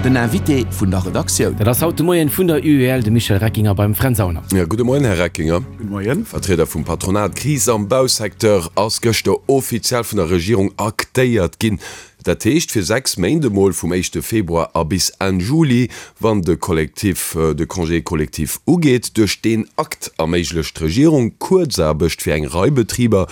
Den Invité vun der Redaktioun. Dat ass haut de Moien vun der UEL, de Michel Reckinger beim Fränz Aulner. Jo, gudde Moien, Här Reckinger. Gudde Moien. Vertrieder vum Patronat. D'Kris am Bausecteur ass gëschter offiziell vun der Regierung aktéiert ginn. Dat heescht fir 6 Méint emol, vum éischte Februar a bis Enn Juli, wann de Kollektiv, de Congé collectif ugeet. Duerch deen Akt erméiglecht d'Regierung Kuerzaarbecht fir eng Rei Betriber,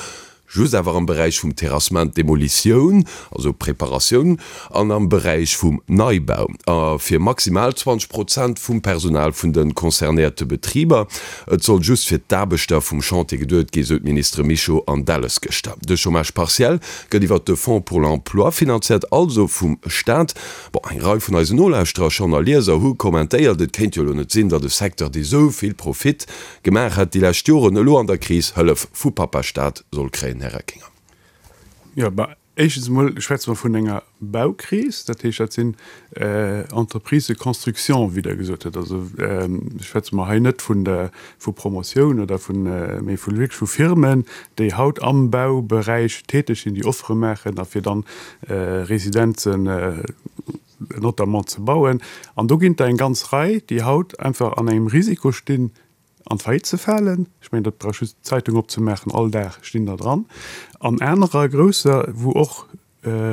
Just awer am Beräich vum Terrassement, Demolitioun, also Preparatioun, an am Beräich vum Neibau, a fir maximal 20 Prozent vum Personal vun de concernéierte Betriber. Et soll just fir d'Aarbechter vum Chantier geduet ginn, sou d'Ministere Mischo an Delles gëschter. De Chômage partiel gëtt iwwert de Fonds pour l'emploi finanziert, also vum Staat. Bon, eng Rei vun eisen Nolauschterer schonn a Lieser hu kommentéiert, et kéint jo elo net sinn, datt e Secteur, dee sou vill Profit Gemaach hätt déi lescht Joren, elo an der Kris Hëllef vu Pappa Staat soll kréien, Här Reckinger. Jo, bah, éischtens emol schwätze mer vun enger Baukris, dat heescht, dat sinn Entreprises de construction, wéi Der gesot hutt. Also schwätze mer hei net vun der, vu Promotioun oder vun, mee vu wierklech vu Firmen, déi haut am Bauberäich täteg sinn, déi Offere maachen a fir dann Residenzen, notamment ze bauen. An do ginn der eng ganz Rei, déi haut einfach an engem Risiko stinn, an d'Faillite ze falen. Ech mengen, dat brauch just d'Zeitung opzemaachen, all Dag stinn der dran. An anerer grousser, wou och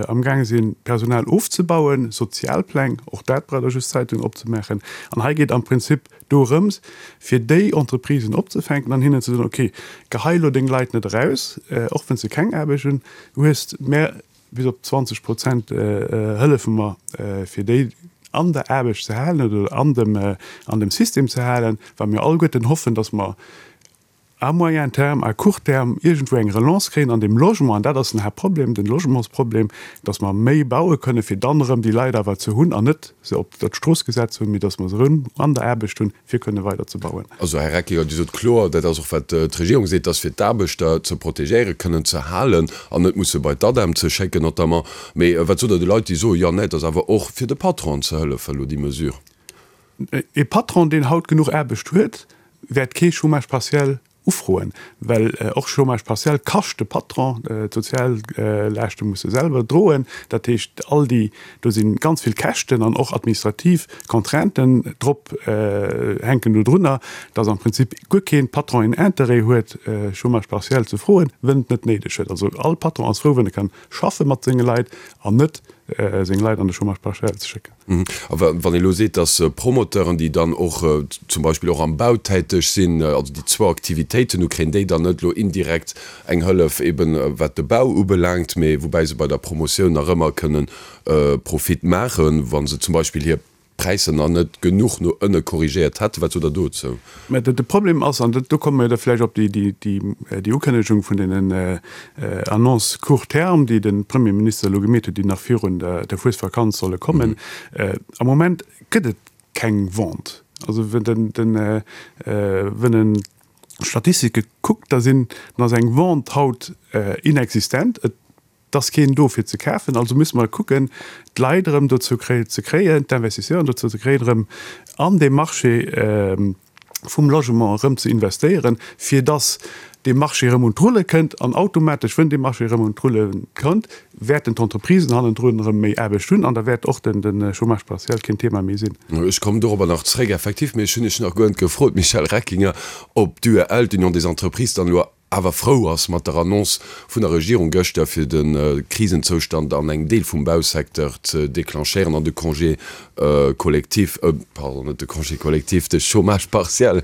amgaange sinn, Personal ofzebauen, Sozialpläng, och dat brauch der just d'Zeitung opzemaachen. An hei geet am Prinzip dorëms, fir déi Entreprisen opzefänken an hinnen ze soen, okay, gehei elo deng Leit net eraus, och wann s de keng Aarbecht hunn hues, mä Bis op 20 Prozent hëllefe mer, fir déi an der Aarbecht ze halen oder an dem, an dem System ze halen, well mir alleguerten hoffen, dass mer à moyen terme, à court terme iergendwou eng Relance kréien an deem Logement. An dat ass den Haaptproblem, den Logementsproblem, dass mer méi baue kënnen, fir dann erëm déi Leit awer ze hunn an net se op der d'Strooss gesat ze hunn, mee dass mer se erëm an der Aarbecht hunn, fir kënne weider ze bauen. Also, Här Reckinger, Dir sot kloer, dat ass och wat d'Regierung seet, dass fir d'Aarbechter ze protegéieren, kënnen ze halen an net musse bei d'ADEM ze schécken notamment. Mee wat sot Der de Leit, déi soen, jo, nee, et ass awer och fir de Patronen ze hëllefen elo déi Mesure? E Patron, deen haut genuch Aarbecht huet, wäert kee Chômage partiel Ufroen, well och Chômage partiel kascht de Patron, d'Soziallaaschte muss e selwer droen. Dat heescht, all déi, do si ganz vill Käschten an och administrativ Contrainten drop, hänken do drunner, datt am Prinzip guer kee Patron een Interêt huet, Chômage partiel ze froen, wënn et net néideg huet. Also all Patron ass frou, wënn e kann schaffe mat senge Leit an net seng Leit an de Chômage partiel ze schécken. A wann ee elo seet, datt Promoteuren, déi dann och zum Beispill och am Bau täteg sinn, also déi zwou Aktivitéiten hu, kréien déi dann net elo indirekt eng Hëllef eben wat de Bau ubelaangt, mee woubäi se bei der Promotioun nach ëmmer kënnen Profit maachen, wa se zum Beispill hir Präisser nach net genuch no ënne korrigéiert hätten. Wat sot Der dozou? Mä de Problem ass, an do komme mir da vläicht op déi Ukënnegung vun deenen Annonces court terme, déi de Premierminister elo gemeet huet, déi nach virun der Fuesvakanz solle kommen, Am Moment gëtt et keng Vente. Also wën en d'Statistike kuckt, da sinn, dann ass eng Vente haut inexistent. Et 't ass keen do fir ze kafen, also musse mer kucken d'Leit erëm dozou ze kréien, d'Investisseuren dozou ze kréien, erëm an dee Marché vum Logement erëm ze investéieren, fir dass dee Marché erëm un d'Rulle kënnt. An automatesch, wënn dee Marché erëm un d'Rulle kënnt, wäerten d'Entreprisen hannendrun erëm méi Aarbecht hunn an da wäert och de Chômage partiel keen Thema méi sinn. Ech kommen dorobber nach zréck, effektiv, mee ech hunn Iech nach guer net gefrot, Michel Reckinger, ob d'UEL, d'Union des Entreprises, dann elo awer frou ass mat der Annonce vun der Regierung gëschter, fir de Krisenzoustand an engem Deel vum Bausecteur ze declenchéieren an de Congé collectif, pardon, net de Congé collectif, de Chômage partiel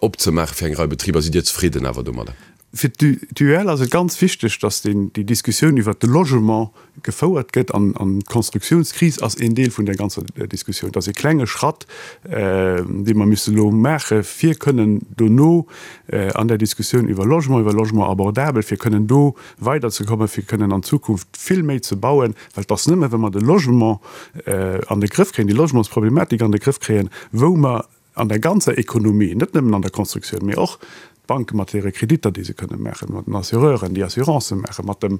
opzemaache fir eng Rei Betriber. Sidd Dir zefridden awer domadder? Fir d'UEL ass et ganz wichteg, datt déi Diskussioun iwwert de Logement gefouert gëtt an d'Konstruktiounskris ass een Deel vun där ganzer Diskussioun. Et ass ee klenge Schratt, dee mer müssen elo maache fir kënnen dono an där Diskussioun iwwer Logement, iwwer Logement abordabel, fir kënnen do weiderzekommen, fir kënnen an Zukunft vill méi ze bauen, well et ass nëmme wa mer de Logement an de Grëff kréien, déi Logementsproblematik an de Grëff kréien, wou mer an der ganzer Ekonomie, net nëmmen an der Constructioun, mee och d'Banke mat hire Kreditter, déi se kënne maachen, mat den Assureuren, déi Assurancë maachen, mat dem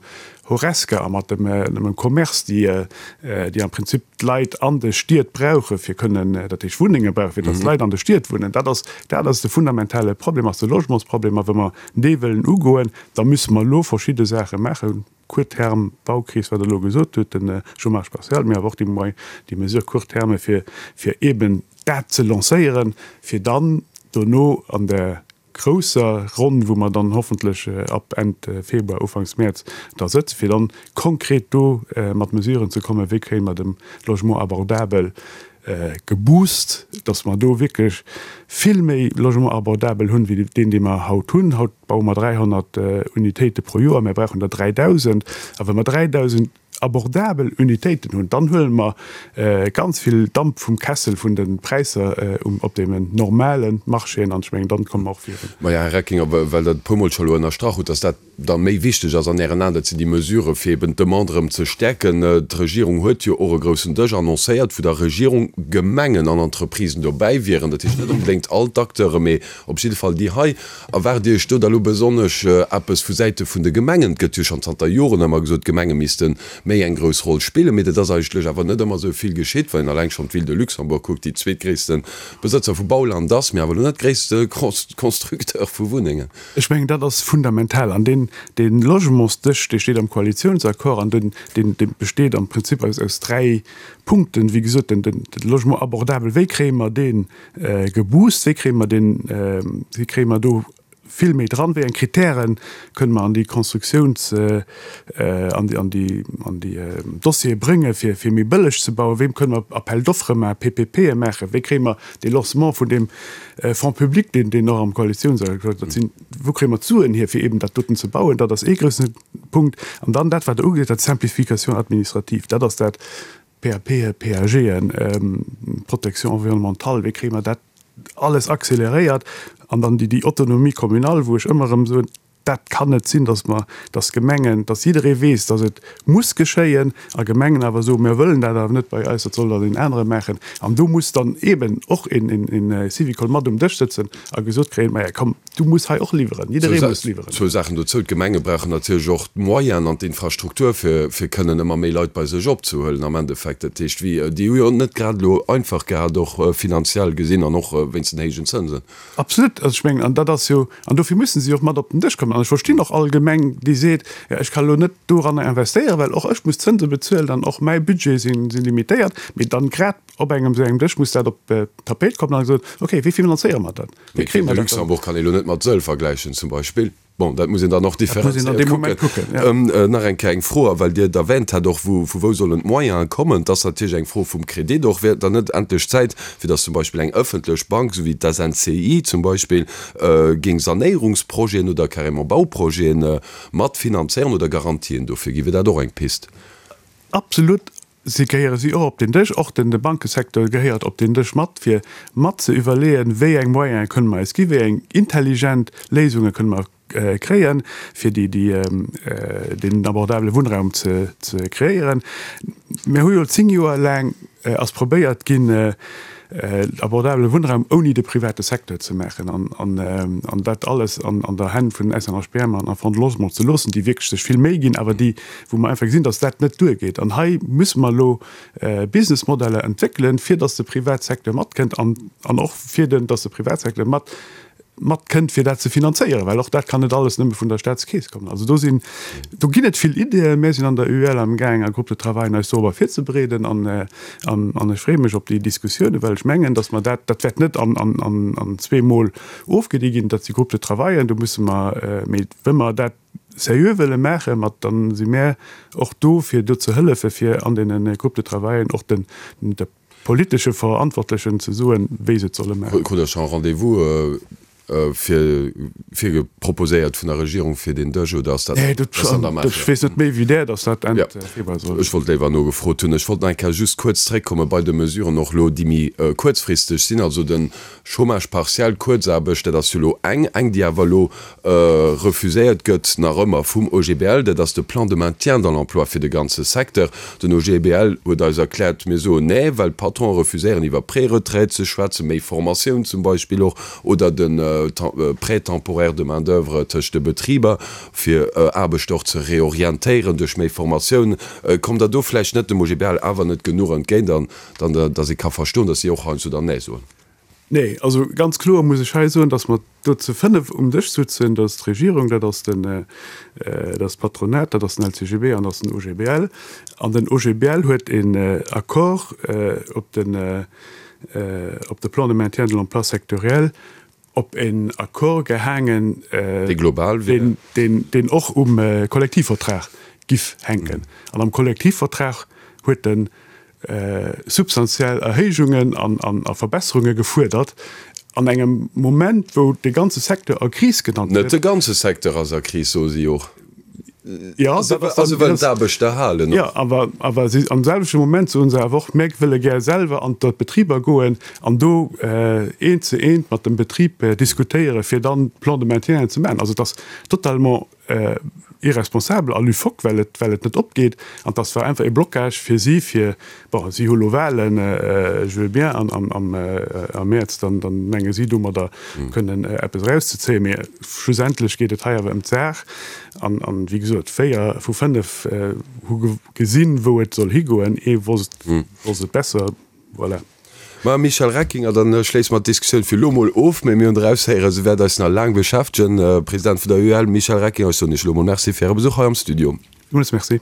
Horesca a mat dem Commerce, déi, déi am Prinzip d'Leit an de Stied brauche fir kënnen, dat heescht Wunnenge brauchen, fir datt d'Leit an de Stied wunnen. Dat ass, dat ass de fundamentale Problem, ass de Logementsproblem. A wa mer dee wëllen ugoen, da musse mer elo verschidde Saache maachen. Court terme Baukris, wat Der elo gesot hutt, de Chômage partiel, mee awer och déi Moy, déi Mesures court terme, fir, fir eeben dat ze lancéieren, fir dann dono an der grousser Ronn, wou mer dann hoffentlech ab Enn Februar, Ufanks Mäerz da sëtzen, fir dann konkret do mat Mesuren ze kommen, wéi kréie mer de Logement abordabel geboost, dass mer do wierklech vill méi Logement abordabel hunn, wéi deen, dee mer haut hunn. Haut baue mer 300 Unitéite pro Joer, mer brauchen der 3.000. A wa mer 3.000 abordabel Unitéiten hunn, dann huele mer ganz vill Damp vum Kessel vun de Präisser op deenen normale Marchéen an ech mengen, dann komme mer och virun. Maja, Här Reckinger, well Der et e puermol scho elo ënnerstrach hutt, dass dat da méi wichteg ass an Ären Aen, dat sinn déi Mesurë fir eben d'Demande erëm ze stäerken. D'Regierung huet jo och e groussen Dësch annoncéiert, wou da Regierung, Gemengen an Entreprisen dobäi wieren. Dat heescht net onbedéngt all d'Acteure, mee op jidde Fall déi hei. Erwaart Dir Iech do da lo besonnesch eppes vu Säite vun de Gemengen? Et gëtt jo schonn zanter Joren ëmmer gesot, d'Gemenge misste méi eng grouss Roll spillen, mee dat ass eigentlech awer net ëmmer esou vill geschitt. Wann een alleng schonn d'Ville de Luxembourg kuckt, déi zweetgréisste Besëtzer vu Bauland ass, mee awer elo net gréisste Constructeur vu Wunnengen. Ech mengen, dat ass fundamental. An deen, dee Logementsdësch, dee steet am Koalitionsaccord an deen, deen, dee besteet am Prinzip aus, aus dräi Punkten. Wéi gesot, den, den, de Logement abordabel, wéi kréie mer dee geboost, wéi kréie mer deen, wéi kréie mer do vill méi dran, wéi eng Kritäre kënne mer an déi Constructiouns-, an déi, an déi, an déi Dossiere bréngen, fir, fir méi bëlleg ze bauen, wéi kënne mer Appel d'offres maachen, PPPe maachen, wéi kréie mer dee Lancement vun deem Fonds public, deen, deen och am Koalitionsaccord, dat sinn, wou kréie mer d'Suen hier, fir eeben dat doten ze bauen, dat ass ee groussen Punkt. An dann dat, wat Der ugeet hutt, d'Simplification administrative, dat ass dat, PAPen, PAGen, Protection environnementale, wéi kréie mer dat alles accéléréiert? An dann déi, déi Autonomie communale, wou ech ëmmer erëm soen, Dat kann net sinn, dass mer, dass Gemengen, dass jidderee weess, dass et muss geschéien, a Gemengen awer soen, mir wëllen dat awer net bei eis, dat soll dann een anere maachen. An do muss dann eeben och een Syvicol mat um Dësch sëtzen a gesot kréien, Maja komm, du muss hei och liwweren, jidderee muss liwweren. Zwou Saachen dozou, D'Gemenge brauchen natierlech och d'Moyenen an d'Infrastruktur, fir fir kënnen ëmmer méi Leit bei sech opzehuelen am Endeffekt. Dat heescht, wéi, déi hu jo net grad elo einfach gehat, och finanziell gesinn an och wéinst den héijen Zënsen. Absolut. Also ech mengen, an dat ass jo, an dofir mussen si och mat op den Dësch kommen. An ech verstinn och all Gemeng, déi seet, jo ech ka elo net doranner investéieren, well och ech muss Zënse bezuelen an och mäi Budget si limitéiert. Mee dann grad op engem esou engem Dësch muss dat op d'Tapéit kommen a gesot, okay, wéi finanzéiere mer dat? Wéi kréie mer dat dann? Luxembourg kann ee elo net mat Sëll vergläichen zum Beispill. Bon, dat muss een dann och differenzéiert kucken. Nach eng Kéier eng Fro, a well Dir et erwähnt hat och, vu wou sollen d'Moyene kommen? Et ass natierlech eng Fro vum Kredit och. Wär et dann net endlech Zäit, fir datt zum Beispill eng ëffentlech Bank, esou wéi d'SNCI zum Beispill, géing Sanéierungsprojeten oder carrément Bauprojete mat finanzéieren oder Garantien dofir ginn? Wier dat och eng Pist? Absolut. Si gehéiere si och op den Dësch, och den de Bankesecteur gehéiert op den Dësch mat, fir mat ze iwwerleeën, wéi eng Moyene kënne mer eis ginn, wéi eng intelligent Léisunge kënne mer kréien, fir déi, déi, deen abordabele Wunnraum ze, ze kreéieren. Mir hu jo 10 Joer laang ass probéiert ginn, abordabele Wunnraum ouni de private Secteur ze maachen an, an dat alles an, an der Hänn vun SNHBM an a Fonds de Logement ze loossen, déi wierklech sech vill Méi ginn, awer déi, wou mer einfach gesinn, dass dat net duergeet. An hei musse mer elo Businessmodeller entwéckelen, fir dass de Privatsecteur matkënnt an, an och fir den, dass de Privatsecteur mat, matkënnt, fir dat ze finanzéieren, well och dat kann net alles nëmme vun der Staatskeess kommen. Also do sinn, do ginn et vill Ideeën. Mir sinn an der UEL amgaang a Groupe de travail eis dorobber virzebereeden an, an, an ech freeë mech op déi Diskussiounen, well ech mengen, dass mer dat, dat wäert net an, an, an, an zweemol ofgedi ginn, dat si Groupe de travailen, do musse mer, mee wa mer dat seriö wëlle maachen, mat dann si mär och do fir do ze hëllefen, fir an deene Groupes de travailen och den, de politesche Verantwortlechen ze soen, wéi se et solle maachen. Krut Der scho e Rendez-vous fir virge proposéiert vun der Regierung fir deen Dësch oder ass dat ass an der Maach? Ech weess net méi wéi där, datt dat Enn Februar soll. Ech wollt léiwer nogefrot hunn. Ech wollt nach eng Kéier just kuerz zréckkomme bei de Mesuren och elo, déi méi kuerzfristeg sinn, also de Chômage partiel, Kuerzaarbecht, dat ass jo elo eng, eng déi awer elo refuséiert gëtt nach ëmmer vum OGBL, dat ass de Plan de maintien dans l'emploi fir de ganze Secteur. Den OGBL huet eis erkläert, mir soen nee, well d'Patronen refuséieren iwwer Préretraite ze schwätzen, méi Formatioun zum Beispill och, oder de Prêt temporaire de main d'oeuvre tëscht de Betriber, fir Aarbechter och ze reorientéieren duerch méi Formatioun. Kommt Der do vläicht net dem OGBL awer net genuch entgéint an dann, datt ee ka verstoen, datt si och heiansdo dann nee soen? Nee, also ganz kloer muss ech hei soen, datt mer do zu 5 um Dësch sutzen, dat ass d'Regierung, dat ass den, dat ass d'Patronat, dat ass den LCGB an dat ass den OGBL. An den OGBL huet een Accord op den, op de Plan de maintien de l'emploi sectoriel, op een Accord gehaangen, Dee global wier. deen och um Kollektivvertrag giff hänken. An am Kollektivvertrag huet en substantiell Erhéijungen a Verbesserunge gefuerdert, an engem Moment, wou de ganze Secteur a Kris genannt gëtt. Net de ganze Secteur ass a Kris, soe si och. Jo, a se wëllen d'Aarbechter halen och. Jo, awer, awer si, am selwechte Moment soe se awer och, Mir wëlle gär selwer an d'Betriber goen an do eent zu eent mat dem Betrib diskutéieren, fir dann Plan de maintien ze maachen. Also et ass totalement irresponsabel a loufoque, well et, well et net opgeet. An dass war einfach e Blocage fir si, fir, bon, si hu lo Wahlen, je veux bien, an am, am, am Mäerz, dann, dann menge si domadder kënnen eppes erauszezéien. Mee schlussendlech geet et hei awer ëm d'Saach. An, an wéi gesot, 4 vu 5 hu gesinn, wou et soll higoen. Ee wosst, wosst et besser. Voilà. Ma Michel Reckinger, dann schléisse mer d'Diskussioun fir elo mol of, mee mir hunn eraushéieren, se wäert eis nach laang beschäftegen. President vun der UEL Michel Reckinger, ech soen Iech elo mol Merci fir Äre Besuch hei am Studio. Villmools Merci.